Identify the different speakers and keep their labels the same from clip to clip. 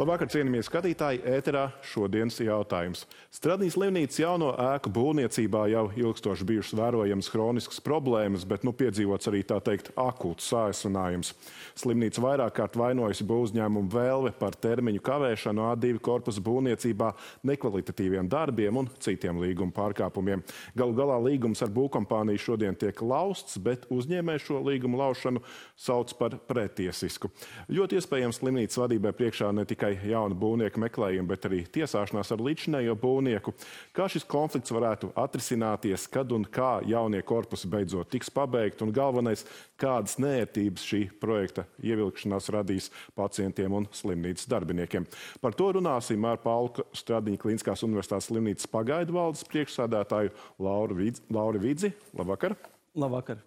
Speaker 1: Labvakar, cienījamie skatītāji, ēterā šodienas jautājums. Stradnīs slimnīcas jauno ēku būvniecībā jau ilgstoši bijušas vērojamas hroniskas problēmas, bet piedzīvots arī tā teikt akūts sāsinājums. Slimnīca vairāk kārt vainojusi būvuzņēmumu Velve par termiņu kavēšanu A2 korpusa būvniecībā, nekvalitatīviem darbiem un citiem līguma pārkāpumiem. Galu galā līgums ar būvkompāniju šodien tiek lausts, bet uzņēmēji šo līgumu laušanu sauc par pretiesisku. Ļoti iespējams slimnīcas vadībai priekšā ne tikai jauna būvnieka meklējuma, bet arī tiesāšanās ar līdzinējo būvnieku. Kā šis konflikts varētu atrisināties, kad un kā jaunie korpusi beidzot tiks pabeigti, un galvenais, kādas neērtības šī projekta ievilkšanās radīs pacientiem un slimnīcas darbiniekiem. Par to runāsim ar Paulu Stradiņa Kliniskās universitātes slimnīcas pagaidu valdes priekšsēdētāju Lauru Vidzi. Labvakar!
Speaker 2: Labvakar!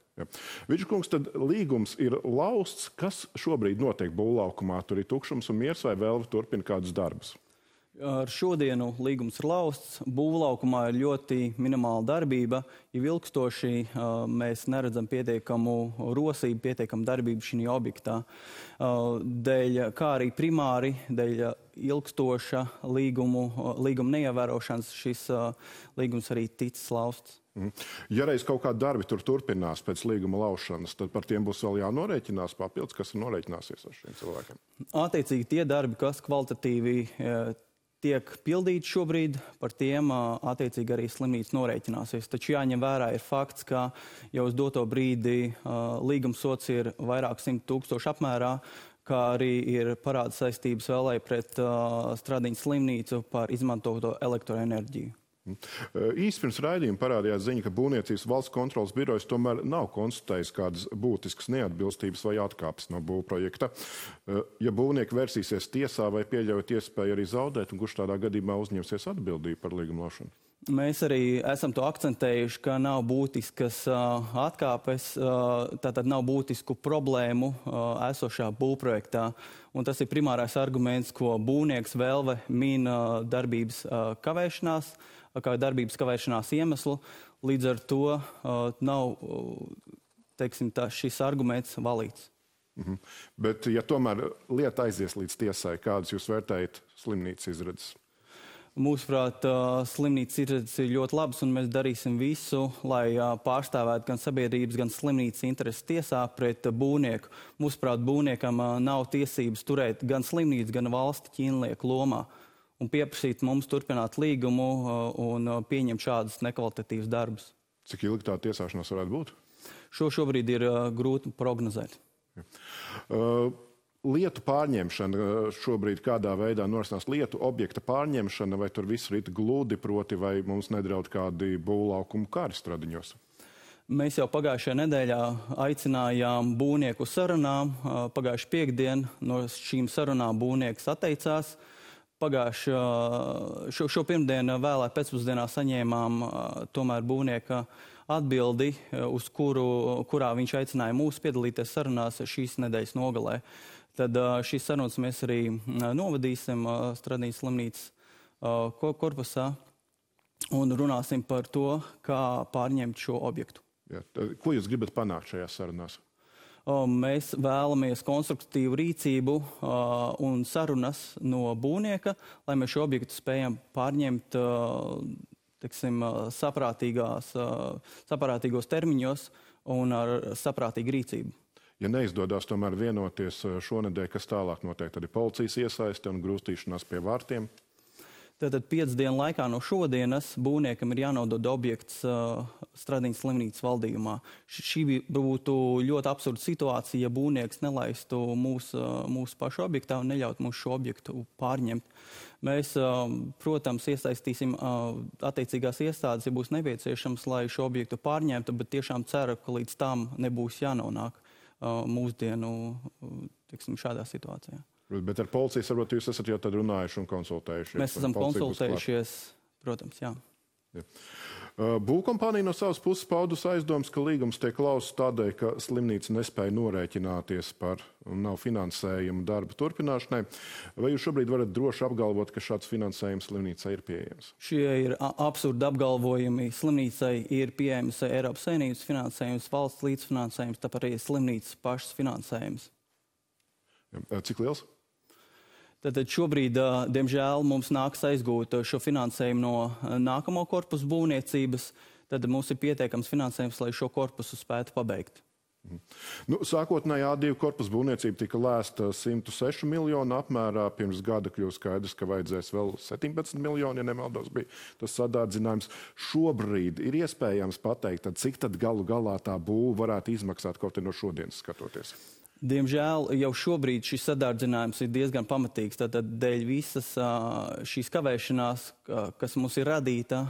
Speaker 1: Vidžkungs, tad līgums ir lausts. Kas šobrīd notiek būvlaukumā? Tur ir tukšums un miers, vai Velve turpina kādus darbus?
Speaker 2: Ar šodienu līgums ir lausts. Būvlaukumā ir ļoti minimāla darbība. Ja ilgstoši mēs neredzam pietiekamu rosību, pietiekamu darbību šī objektā. Kā arī primāri, dēļ ilgstoša līguma neievērošanas šis līgums arī ticis lausts.
Speaker 1: Ja reiz kaut kādi darbi tur turpinās pēc līguma laušanas, tad par tiem būs vēl jānorēķinās papildus, kas ir norēķināsies ar šiem cilvēkiem?
Speaker 2: Attiecīgi tie darbi, kas kvalitatīvi tiek pildīti šobrīd, par tiem attiecīgi arī slimnīca norēķināsies. Taču jāņem vērā ir fakts, ka jau uz doto brīdi līguma sots ir vairāk 100 000 apmērā, kā arī ir parāda saistības vēl pret Stradiņa slimnīcu par izmantoto elektroenerģiju.
Speaker 1: Īsti pirms raidījuma parādījās ziņa, ka Būvniecības valsts kontroles birojas tomēr nav konstatējis kādas būtiskas neatbilstības vai atkāpes no būvprojekta. Ja būvnieki versīsies tiesā, vai pieļaujat iespēju arī zaudēt, un kurš tādā gadījumā uzņemsies atbildību par līguma laušanu?
Speaker 2: Mēs arī esam to akcentējuši, ka nav būtiskas atkāpes, tātad nav būtisku problēmu esošā būvprojektā. Un tas ir primārais arguments, ko būvnieks Velve min darbības kavēšanās iemeslu. Līdz ar to nav, teiksim, šis arguments valīts.
Speaker 1: Bet, ja tomēr lieta aizies līdz tiesai, kādas jūs vērtējat slimnīcas izredzes?
Speaker 2: Mūsuprāt, slimnīcas izredzes ir ļoti labas, un mēs darīsim visu, lai pārstāvētu gan sabiedrības, gan slimnīcas intereses tiesā pret būvnieku. Mūsuprāt, būvniekam nav tiesības turēt gan slimnīcu, gan valsti ķīnlieku lomā un pieprasīt mums turpināt līgumu un pieņemt šādus nekvalitatīvus darbus.
Speaker 1: Cik ilgi tā tiesāšanās varētu būt?
Speaker 2: Šobrīd ir grūti prognozēt.
Speaker 1: Lietu pārņemšana šobrīd kādā veidā norisinās lietu objekta pārņemšana, vai tur viss rit gludi, proti, vai mums nedraud kādi būvlaukumu kari Stradiņos?
Speaker 2: Mēs jau pagājušajā nedēļā aicinājām būvnieku sarunām. Pagājuši piekdien no šīm sarunām būvnieks atteicās. Šo pirmdienu vēlā pēcpusdienā saņēmām tomēr būvnieka atbildi, uz kurā viņš aicināja mūs piedalīties sarunās šīs nedēļas nogalē. Tad šīs sarunas mēs arī novadīsim Stradiņa slimnīcas korpusā un runāsim par to, kā pārņemt šo objektu.
Speaker 1: Jā, ko jūs gribat panākt šajās sarunās?
Speaker 2: Mēs vēlamies konstruktīvu rīcību un sarunas no būvnieka, lai mēs šo objektu spējam pārņemt saprātīgos termiņos un ar saprātīgu rīcību.
Speaker 1: Ja neizdodas tomēr vienoties šonedēļ, kas tālāk notiek, tad ir policijas iesaiste un grūstīšanās pie vārtiem?
Speaker 2: Tātad 5 dienu laikā no šodienas būvniekam ir jānodod objekts Stradiņa slimnīcas valdījumā. Šī būtu ļoti absurda situācija, ja būvnieks nelaistu mūsu pašu objektā un neļaut mums šo objektu pārņemt. Mēs, protams, iesaistīsim attiecīgās iestādes, ja būs nepieciešams, lai šo objektu pārņemtu, bet tiešām ceru, ka līdz tam nebūs jānonāk mūsdienu, teiksim, šādā situācijā.
Speaker 1: Bet ar policijas varbūt jūs esat jau tad runājuši un konsultējušies?
Speaker 2: Mēs esam konsultējušies, protams, jā.
Speaker 1: Būvkompānija no savas puses paudus aizdomas, ka līgums tiek lausts tādēļ, ka slimnīca nespēja norēķināties par un nav finansējuma darba turpināšanai. Vai jūs šobrīd varat droši apgalvot, ka šāds finansējums slimnīcai ir pieejams?
Speaker 2: Šie ir absurdi apgalvojumi. Slimnīcai ir pieejams Eiropas Savienības finansējums, valsts līdzfinansējums, tāpēc arī slimnīcas pašas finansējums.
Speaker 1: Cik liels?
Speaker 2: Tad šobrīd, diemžēl, mums nāks aizgūt šo finansējumu no nākamo korpusu būvniecības. Tad mums ir pietiekams finansējums, lai šo korpusu spētu pabeigt.
Speaker 1: Sākotnēji A2 korpusu būvniecība tika lēsta 106 miljonu apmērā. Pirms gada kļūst skaidrs, ka vajadzēs vēl 17 miljoni, ja nemaldos, bija tas sadārdzinājums. Šobrīd ir iespējams pateikt, cik tad galu galā tā būva varētu izmaksāt kaut no šodienas skatoties?
Speaker 2: Diemžēl jau šobrīd šis sadārdzinājums ir diezgan pamatīgs. Tātad dēļ visas šīs kavēšanās, kas mums ir radīta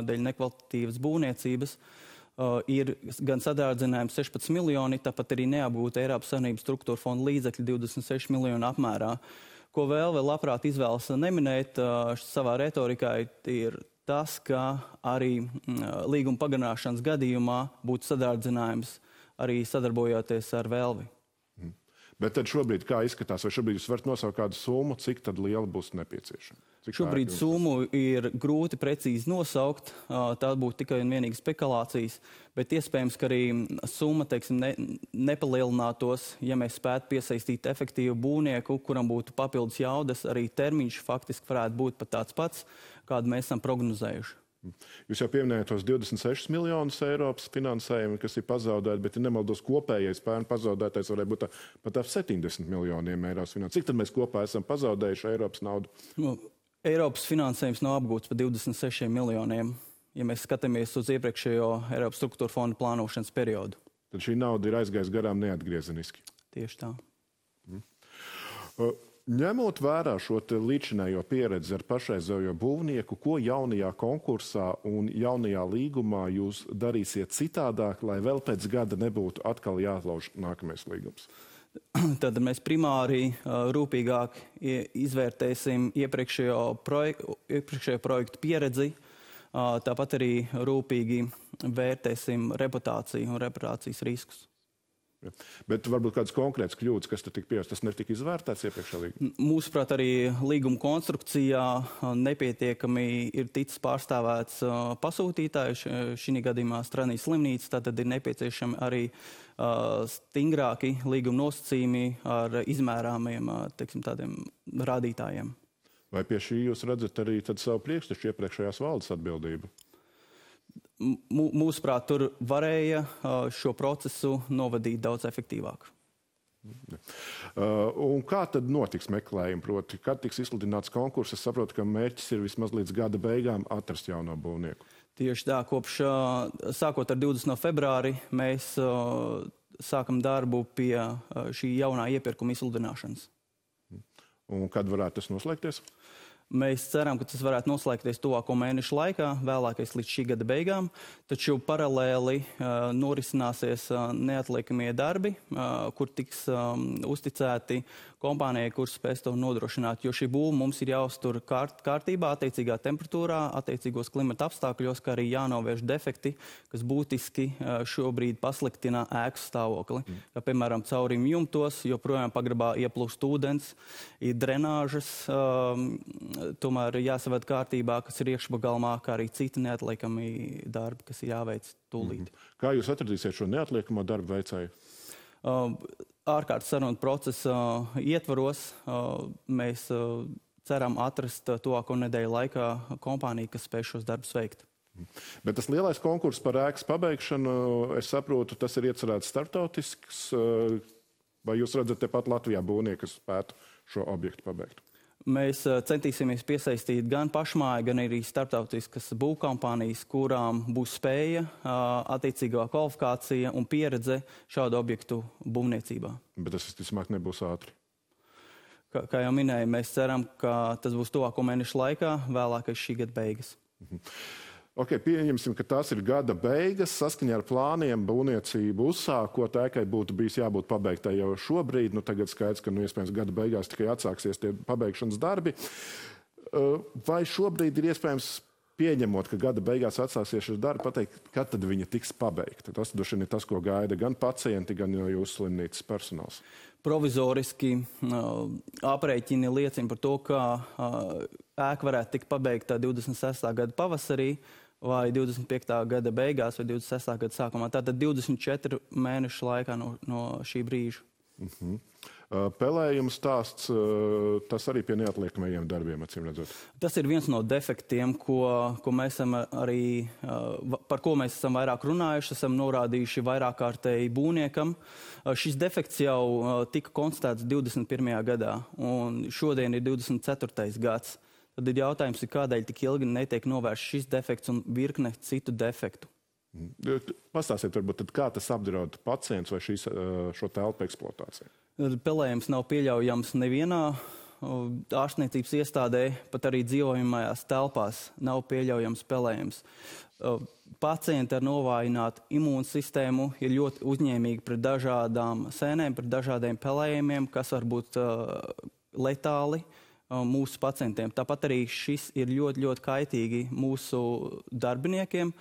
Speaker 2: dēļ nekvalitatīvas būvniecības, ir gan sadārdzinājums 16 miljoni, tāpat arī neapgūta Eiropas Savienības struktūra fonda līdzekļi 26 miljonu apmērā. Ko vēl labprāt izvēlas neminēt savā retorikā, ir tas, ka arī līguma pagarināšanas gadījumā būtu sadārdzinājums arī sadarbojoties ar Velvi.
Speaker 1: Bet tad šobrīd kā izskatās, vai šobrīd jūs varat nosaukt kādu summu, cik tad liela būs nepieciešama?
Speaker 2: Šobrīd summu ir grūti precīzi nosaukt, tā būtu tikai un vienīgi spekulācijas, bet iespējams, ka arī summa, teiksim, nepalielinātos, ja mēs spētu piesaistīt efektīvu būvnieku, kuram būtu papildus jaudas, arī termiņš faktiski varētu būt pat tāds pats, kādu mēs esam prognozējuši.
Speaker 1: Jūs jau pieminējāt tos 26 miljonus Eiropas finansējumu, kas ir pazaudēti, bet, ja nemaldos, kopējais pērn pazaudētais varētu būt pat ap 70 miljoniem Eiropas finansējumu. Cik tad mēs kopā esam pazaudējuši Eiropas naudu?
Speaker 2: Eiropas finansējums nav apgūts par 26 miljoniem, ja mēs skatāmies uz iepriekšējo Eiropas struktūra fonda plānošanas periodu.
Speaker 1: Tad šī nauda ir aizgājusi garām neatgriezeniski.
Speaker 2: Tieši tā.
Speaker 1: Ņemot vērā šo līdzinējo pieredzi ar pašreizējo būvnieku, ko jaunajā konkursā un jaunajā līgumā jūs darīsiet citādāk, lai vēl pēc gada nebūtu atkal jāatlauž nākamais līgums?
Speaker 2: Tad mēs primāri rūpīgāk izvērtēsim iepriekšējo projektu pieredzi, tāpat arī rūpīgi vērtēsim reputāciju un reputācijas riskus.
Speaker 1: Bet varbūt kādas konkrētas kļūdas, kas tika pieņemtas, tas netika izvērtēts iepriekšējā līgumā?
Speaker 2: Mūsuprāt, arī līguma konstrukcijā nepietiekami ir ticis pārstāvēts pasūtītājs, šī gadījumā Strādnīs slimnīca, tātad ir nepieciešami arī stingrāki līguma nosacījumi ar izmērāmiem, teiksim, tādiem rādītājiem.
Speaker 1: Vai pie šī jūs redzat arī savu priekštešu iepriekšējās valdes atbildību?
Speaker 2: Mūsuprāt, tur varēja šo procesu novadīt daudz efektīvāk.
Speaker 1: Un kā tad notiks meklējumi? Proti, kad tiks izsludināts konkurss? Es saprotu, ka mērķis ir vismaz līdz gada beigām atrast jauno būvnieku.
Speaker 2: Tieši tā, sākot ar 20. februāri, mēs sākam darbu pie šī jaunā iepirkuma izsludināšanas.
Speaker 1: Un kad varētu tas noslēgties?
Speaker 2: Mēs ceram, ka tas varētu noslēgties tuvāko mēnešu laikā, vēlākais līdz šī gada beigām, taču paralēli norisināsies neatliekamie darbi, kur tiks uzticēti kompānijai, kur spēs to nodrošināt, jo šī būva mums ir jāuztur kārtībā, attiecīgā temperatūrā, attiecīgos klimata apstākļos, kā arī jānovērš defekti, kas būtiski šobrīd pasliktina ēku stāvokli. Kā, piemēram, caurīm jumtos, joprojām pagrabā ieplūst ūdens, ir drenāžas, tomēr jāsaved kārtībā, kas ir iekšpagalmā, kā arī citi neatliekami darbi, kas ir jāveic tūlīt.
Speaker 1: Kā jūs atradīsiet šo neatliekamo darbu veicēju?
Speaker 2: Ārkārtas sarunu procesa ietvaros mēs ceram atrast tuvāko nedēļu laikā kompāniju, kas spēj šos darbus veikt.
Speaker 1: Bet tas lielais konkurss par ēkas pabeigšanu, es saprotu, tas ir iecerēts starptautisks, vai jūs redzat tepat Latvijā būvnieku, kas spētu šo objektu pabeigt?
Speaker 2: Mēs centīsimies piesaistīt gan pašmāju, gan arī starptautiskas būvkompānijas, kurām būs spēja, attiecīgā kvalifikācija un pieredze šādu objektu būvniecībā.
Speaker 1: Bet tas visticamāk nebūs ātri.
Speaker 2: Kā jau minēju, mēs ceram, ka tas būs tuvāko mēnešu laikā, vēlākais šī gada beigas.
Speaker 1: Pieņemsim, ka tās ir gada beigas. Saskaņā ar plāniem būvniecību uzsākot, ēkai būtu bijis jābūt pabeigtai jau šobrīd. Tagad skaidrs, ka iespējams gada beigās tikai atsāksies tie pabeigšanas darbi. Vai šobrīd ir iespējams, pieņemot, ka gada beigās atsāksies šis darbi, pateikt, kad tad viņa tiks pabeigta? Tas droši vien ir tas, ko gaida gan pacienti, gan jūsu slimnīcas personāls.
Speaker 2: Provizoriski aprēķini liecina par to, ka ēka varētu tikt pabeigta 26. gada pavasarī, vai 25. gada beigās, vai 26. gada sākumā. Tātad 24 mēnešu laikā no šī brīža.
Speaker 1: Pelējuma stāsts, tas arī pie neatliekamajiem darbiem, acīm redzot.
Speaker 2: Tas ir viens no defektiem, ko mēs esam arī, par ko mēs esam vairāk runājuši, esam norādījuši vairāk kārtēji būvniekam. Šis defekts jau tika konstatēts 21. gadā, un šodien ir 24. gads. Tad ir jautājums, kādēļ tik ilgi netiek novērsts šis defekts un virkne citu defektu.
Speaker 1: Pastāstiet, varbūt, tad kā tas apdraud pacients vai šo telpu eksploatāciju?
Speaker 2: Pelējums nav pieļaujams nevienā ārstniecības iestādē, pat arī dzīvojamajās telpās nav pieļaujams pelējums. Pacienti ar novājinātu imūnsistēmu ir ļoti uzņēmīgi pret dažādām sēnēm, pret dažādiem pelējumiem, kas var būt letāli mūsu pacientiem. Tāpat arī šis ir ļoti, ļoti kaitīgi mūsu darbiniekiem,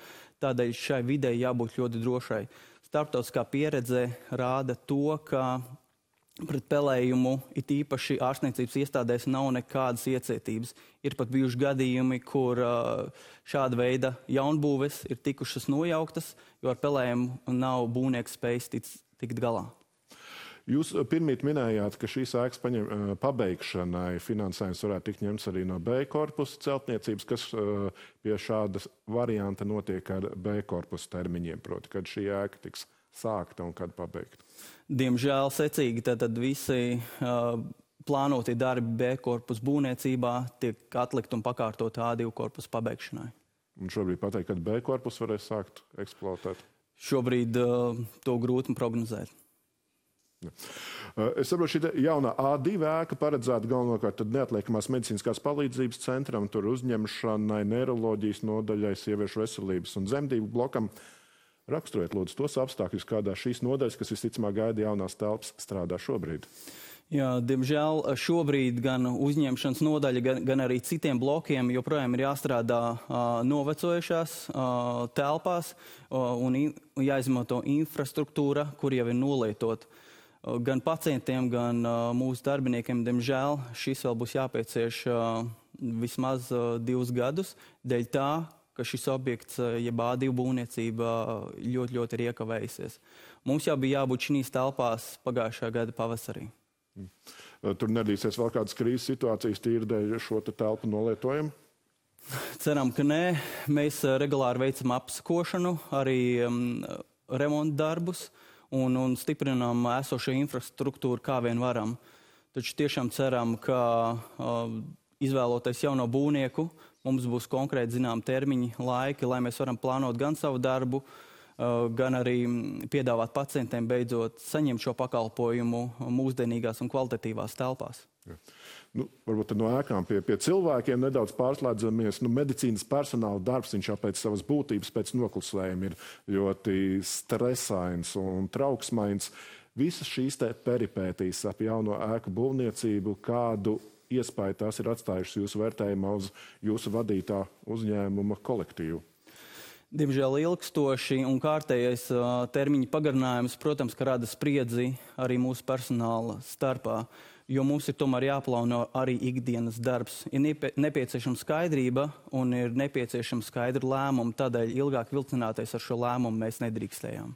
Speaker 2: tādēļ šai videi jābūt ļoti drošai. Starptautiskā pieredze rāda to, ka pret pelējumu it īpaši ārstniecības iestādēs nav nekādas iecietības. Ir pat bijuši gadījumi, kur šāda veida jaunbūves ir tikušas nojauktas, jo ar pelējumu nav būvnieks spējis tikt galā.
Speaker 1: Jūs pirmīt minējāt, ka šīs ēkas pabeigšanai finansējums varētu tikt ņemts arī no B korpusa celtniecības, kas pie šāda varianta notiek ar B korpusa termiņiem, proti, kad šī ēka tiks sākta un kad pabeigta.
Speaker 2: Diemžēl secīgi tad visi plānotie darbi B korpusa būvniecībā tiek atlikt un pakārtot A2 korpusa pabeigšanai.
Speaker 1: Un šobrīd pateikt, kad B korpusu varēs sākt eksploatēt?
Speaker 2: Šobrīd to grūti prognozēt.
Speaker 1: Es saprotu, šī jaunā A2 ēka paredzēta galvenokārt neatliekamās medicīniskās palīdzības centram, tur uzņemšanai, neiroloģijas nodaļai, sieviešu veselības un dzemdību blokam. Raksturojiet, lūdzu, tos apstākļus, kādā šīs nodaļas, kas visticamāk gaida jaunās telpas, strādā šobrīd.
Speaker 2: Jā, diemžēl šobrīd gan uzņemšanas nodaļa, gan arī citiem blokiem joprojām ir jāstrādā novecojušās telpās un jāizmanto infrastruktūra, kur jau ir nolietot. Gan pacientiem, gan mūsu darbiniekiem, diemžēl, šis vēl būs jāpiecieš vismaz 2 gadus, dēļ tā, ka šis objekts, jeb A2 būvniecība, ļoti ir iekavējusies. Mums jau bija jābūt šīs telpās pagājušā gada pavasarī.
Speaker 1: Tur nedīsies vēl kādas krīzes situācijas tīri dēļ šo telpu nolietojumu?
Speaker 2: Ceram, ka nē. Mēs regulāri veicam apsakošanu, arī remonta darbus un stiprinām esošo infrastruktūru, kā vien varam. Taču tiešām ceram, ka izvēloties jauno būvnieku, mums būs konkrēti zinām termiņi, laiki, lai mēs varam plānot gan savu darbu, gan arī piedāvāt pacientiem beidzot saņemt šo pakalpojumu mūsdienīgās un kvalitatīvās telpās.
Speaker 1: Varbūt no ēkām pie cilvēkiem nedaudz pārslēdzamies. Medicīnas personāla darbs, viņš jau pēc savas būtības, pēc noklusējuma ir ļoti stresains un trauksmains. Visas šīs peripētīs ap jauno ēku būvniecību, kādu iespēju tās ir atstājušas jūsu vērtējumā uz jūsu vadītā uzņēmuma kolektīvu?
Speaker 2: Diemžēl ilgstoši un kārtējais termiņa pagarinājums, protams, ka rada spriedzi arī mūsu personāla starpā, jo mums ir tomēr jāplāno arī ikdienas darbs. Ir nepieciešama skaidrība un ir nepieciešama skaidra lēmuma, tādēļ ilgāk vilcināties ar šo lēmumu mēs nedrīkstējām.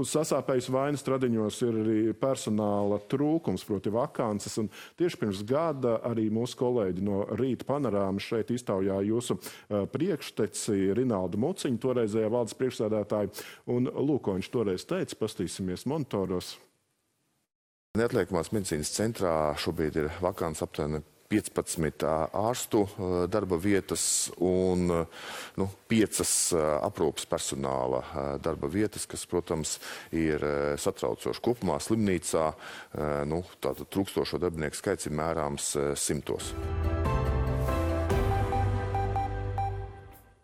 Speaker 1: Sasāpējis vainas Stradiņos ir arī personāla trūkums, proti vakances, un tieši pirms gada arī mūsu kolēģi no Rīta panorāmas šeit iztaujā jūsu priekšteci Rinaldu Muciņu, toreizējā valdes priekšsēdētāju, un lūk, ko viņš toreiz teica, pastīsimies monitoros.
Speaker 3: Neatliekamās medicīnas centrā šobrīd ir vakants aptuveni 15 ārstu darba vietas un 5 aprūpes personāla darba vietas, kas, protams, ir satraucoši. Kopumā slimnīcā tātad trūkstošo darbinieku skaits ir mērāms 100.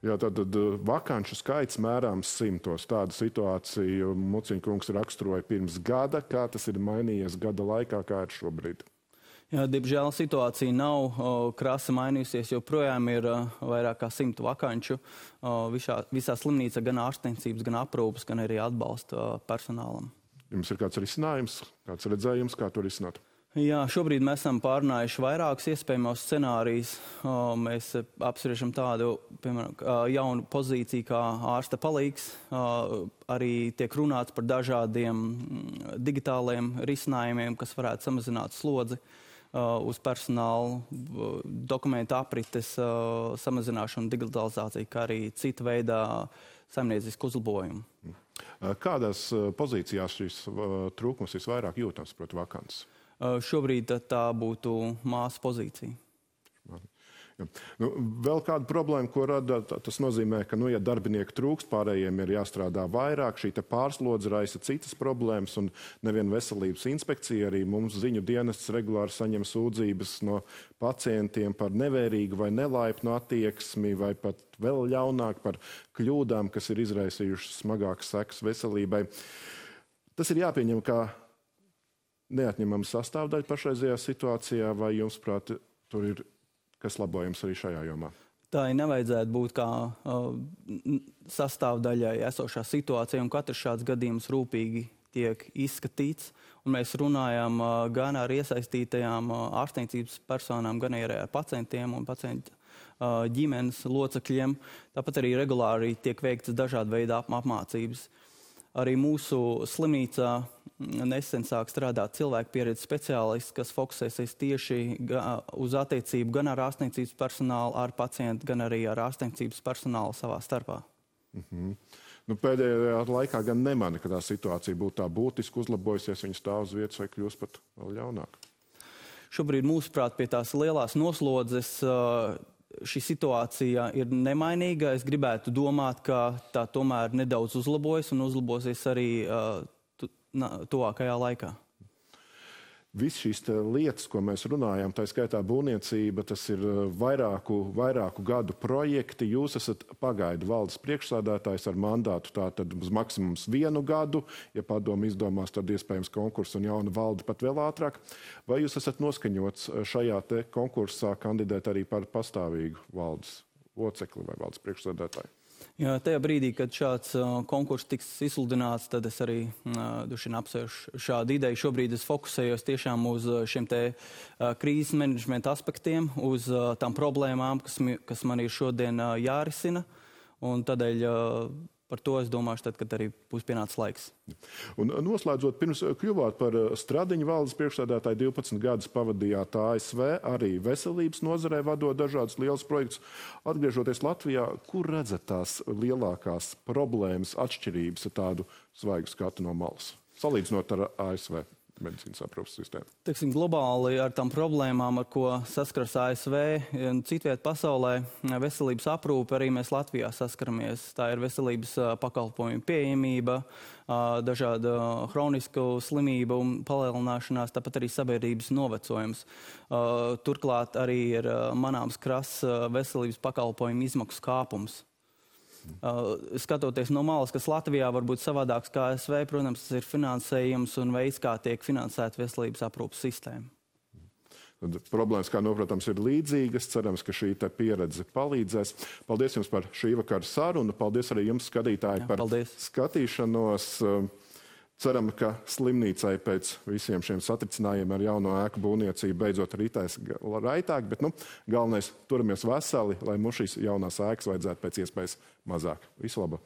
Speaker 1: Jā, tātad vakanču skaits mērāms 100. Tādu situāciju Muciņkungs raksturoja pirms gada. Kā tas ir mainījies gada laikā, kā ir šobrīd?
Speaker 2: Jā, diemžēl situācija nav krasi mainījusies, jo projām ir vairāk kā 100 vakanču visā slimnīcā, gan ārstniecības, gan aprūpes, gan arī atbalsta personālam.
Speaker 1: Jums ir kāds risinājums, kāds redzējums, kā to risināt?
Speaker 2: Jā, šobrīd mēs esam pārunājuši vairākus iespējamos scenārijus. Mēs apspriežam tādu, piemēram, jaunu pozīciju kā ārsta palīgs. Arī tiek runāts par dažādiem digitāliem risinājumiem, kas varētu samazināt slodzi uz personālu, dokumentu aprites samazināšanu, digitalizāciju, kā arī cita veidā saimniecisku uzlabojumu.
Speaker 1: Kādās pozīcijās šīs trūkums visvairāk jūtams, proti, vakants?
Speaker 2: Šobrīd tā būtu māsu pozīcija.
Speaker 1: Ja. Vēl kāda problēma, ko rada, tas nozīmē, ka, ja darbinieki trūkst, pārējiem ir jāstrādā vairāk, šī pārslodze raisa citas problēmas, un nevien veselības inspekcija, arī mums ziņu dienests regulāri saņem sūdzības no pacientiem par nevērīgu vai nelaipnu attieksmi, vai pat vēl ļaunāk par kļūdām, kas ir izraisījušas smagākas sekas veselībai. Tas ir jāpieņem kā neatņemama sastāvdaļa pašreizajā situācijā, vai jums, prāt, tur ir kas labojams arī šajā jomā?
Speaker 2: Tā nevajadzētu būt kā sastāvdaļai esošā situācija, un katrs šāds gadījums rūpīgi tiek izskatīts. Un mēs runājam gan ar iesaistītajām ārstniecības personām, gan arī ar pacientiem un pacientu ģimenes locekļiem. Tāpat arī regulāri tiek veikts dažādu veidu apmācības. Arī mūsu slimnīcā nesen sāk strādāt cilvēku pieredzes speciālists, kas fokusēsies tieši uz attiecību gan ar ārstniecības personālu, ar pacientu, gan arī ar ārstniecības personālu savā starpā.
Speaker 1: Pēdējā laikā gan nemani, ka tā situācija būtu tā būtiski uzlabojusies, viņa stāv uz vietas vai kļūst pat vēl ļaunāk.
Speaker 2: Šobrīd, mūsuprāt, pie tās lielās noslodzes šī situācija ir nemainīga. Es gribētu domāt, ka tā tomēr nedaudz uzlabojas un uzlabosies arī tuvākajā laikā.
Speaker 1: Viss šīs lietas, ko mēs runājam, tā skaitā būvniecība, tas ir vairāku gadu projekti. Jūs esat pagaidu valdes priekšsādātājs ar mandātu tātad uz maksimums 1 gadu. Ja padomu izdomās, tad iespējams konkursu un jauna valde pat vēl ātrāk. Vai jūs esat noskaņots šajā te konkursā kandidēt arī par pastāvīgu valdes locekli vai valdes priekšsādātāju?
Speaker 2: Jā, tajā brīdī, kad šāds konkurss tiks izsludināts, tad es arī apsvēršu šādu ideju. Šobrīd es fokusējos tiešām uz šiem te krīzes menedžmenta aspektiem, uz tām problēmām, kas man ir šodien jārisina. Un tādēļ par to es domāšu tad, kad arī būs pienācis laiks.
Speaker 1: Un noslēdzot, pirms kļuvāt par Stradiņu valdes priekšsēdētāju, 12 gadus pavadījāt ASV, arī veselības nozarē vadot dažādus lielus projektus. Atgriežoties Latvijā, kur redzat tās lielākās problēmas, atšķirības ar tādu svaigu skatu no malas, salīdzinot ar ASV medicīnas aprūpes sistēmu?
Speaker 2: Teiksim, globāli ar tām problēmām, ar ko saskaras ASV un citviet pasaulē, veselības aprūpe arī mēs Latvijā saskaramies. Tā ir veselības pakalpojumu pieejamība, dažāda hronisku slimību palielināšanās, tāpat arī sabiedrības novecojums. Turklāt arī ir manāms krass veselības pakalpojumu izmaksu kāpums. Skatoties no malas, kas Latvijā var būt savādāks kā ASV, protams, tas ir finansējums un veids, kā tiek finansēta veselības aprūpes sistēma.
Speaker 1: Problēmas, kā noprotams, ir līdzīgas. Cerams, ka šī pieredze palīdzēs. Paldies jums par šī vakara sarunu. Paldies arī jums, skatītāji, par skatīšanos. Ceram, ka slimnīcai pēc visiem šiem satricinājumiem ar jauno ēku būvniecību beidzot ritēs raitāk, bet galvenais turamies veseli, lai mums šīs jaunās ēkas vajadzētu pēc iespējas mazāk. Visu labu!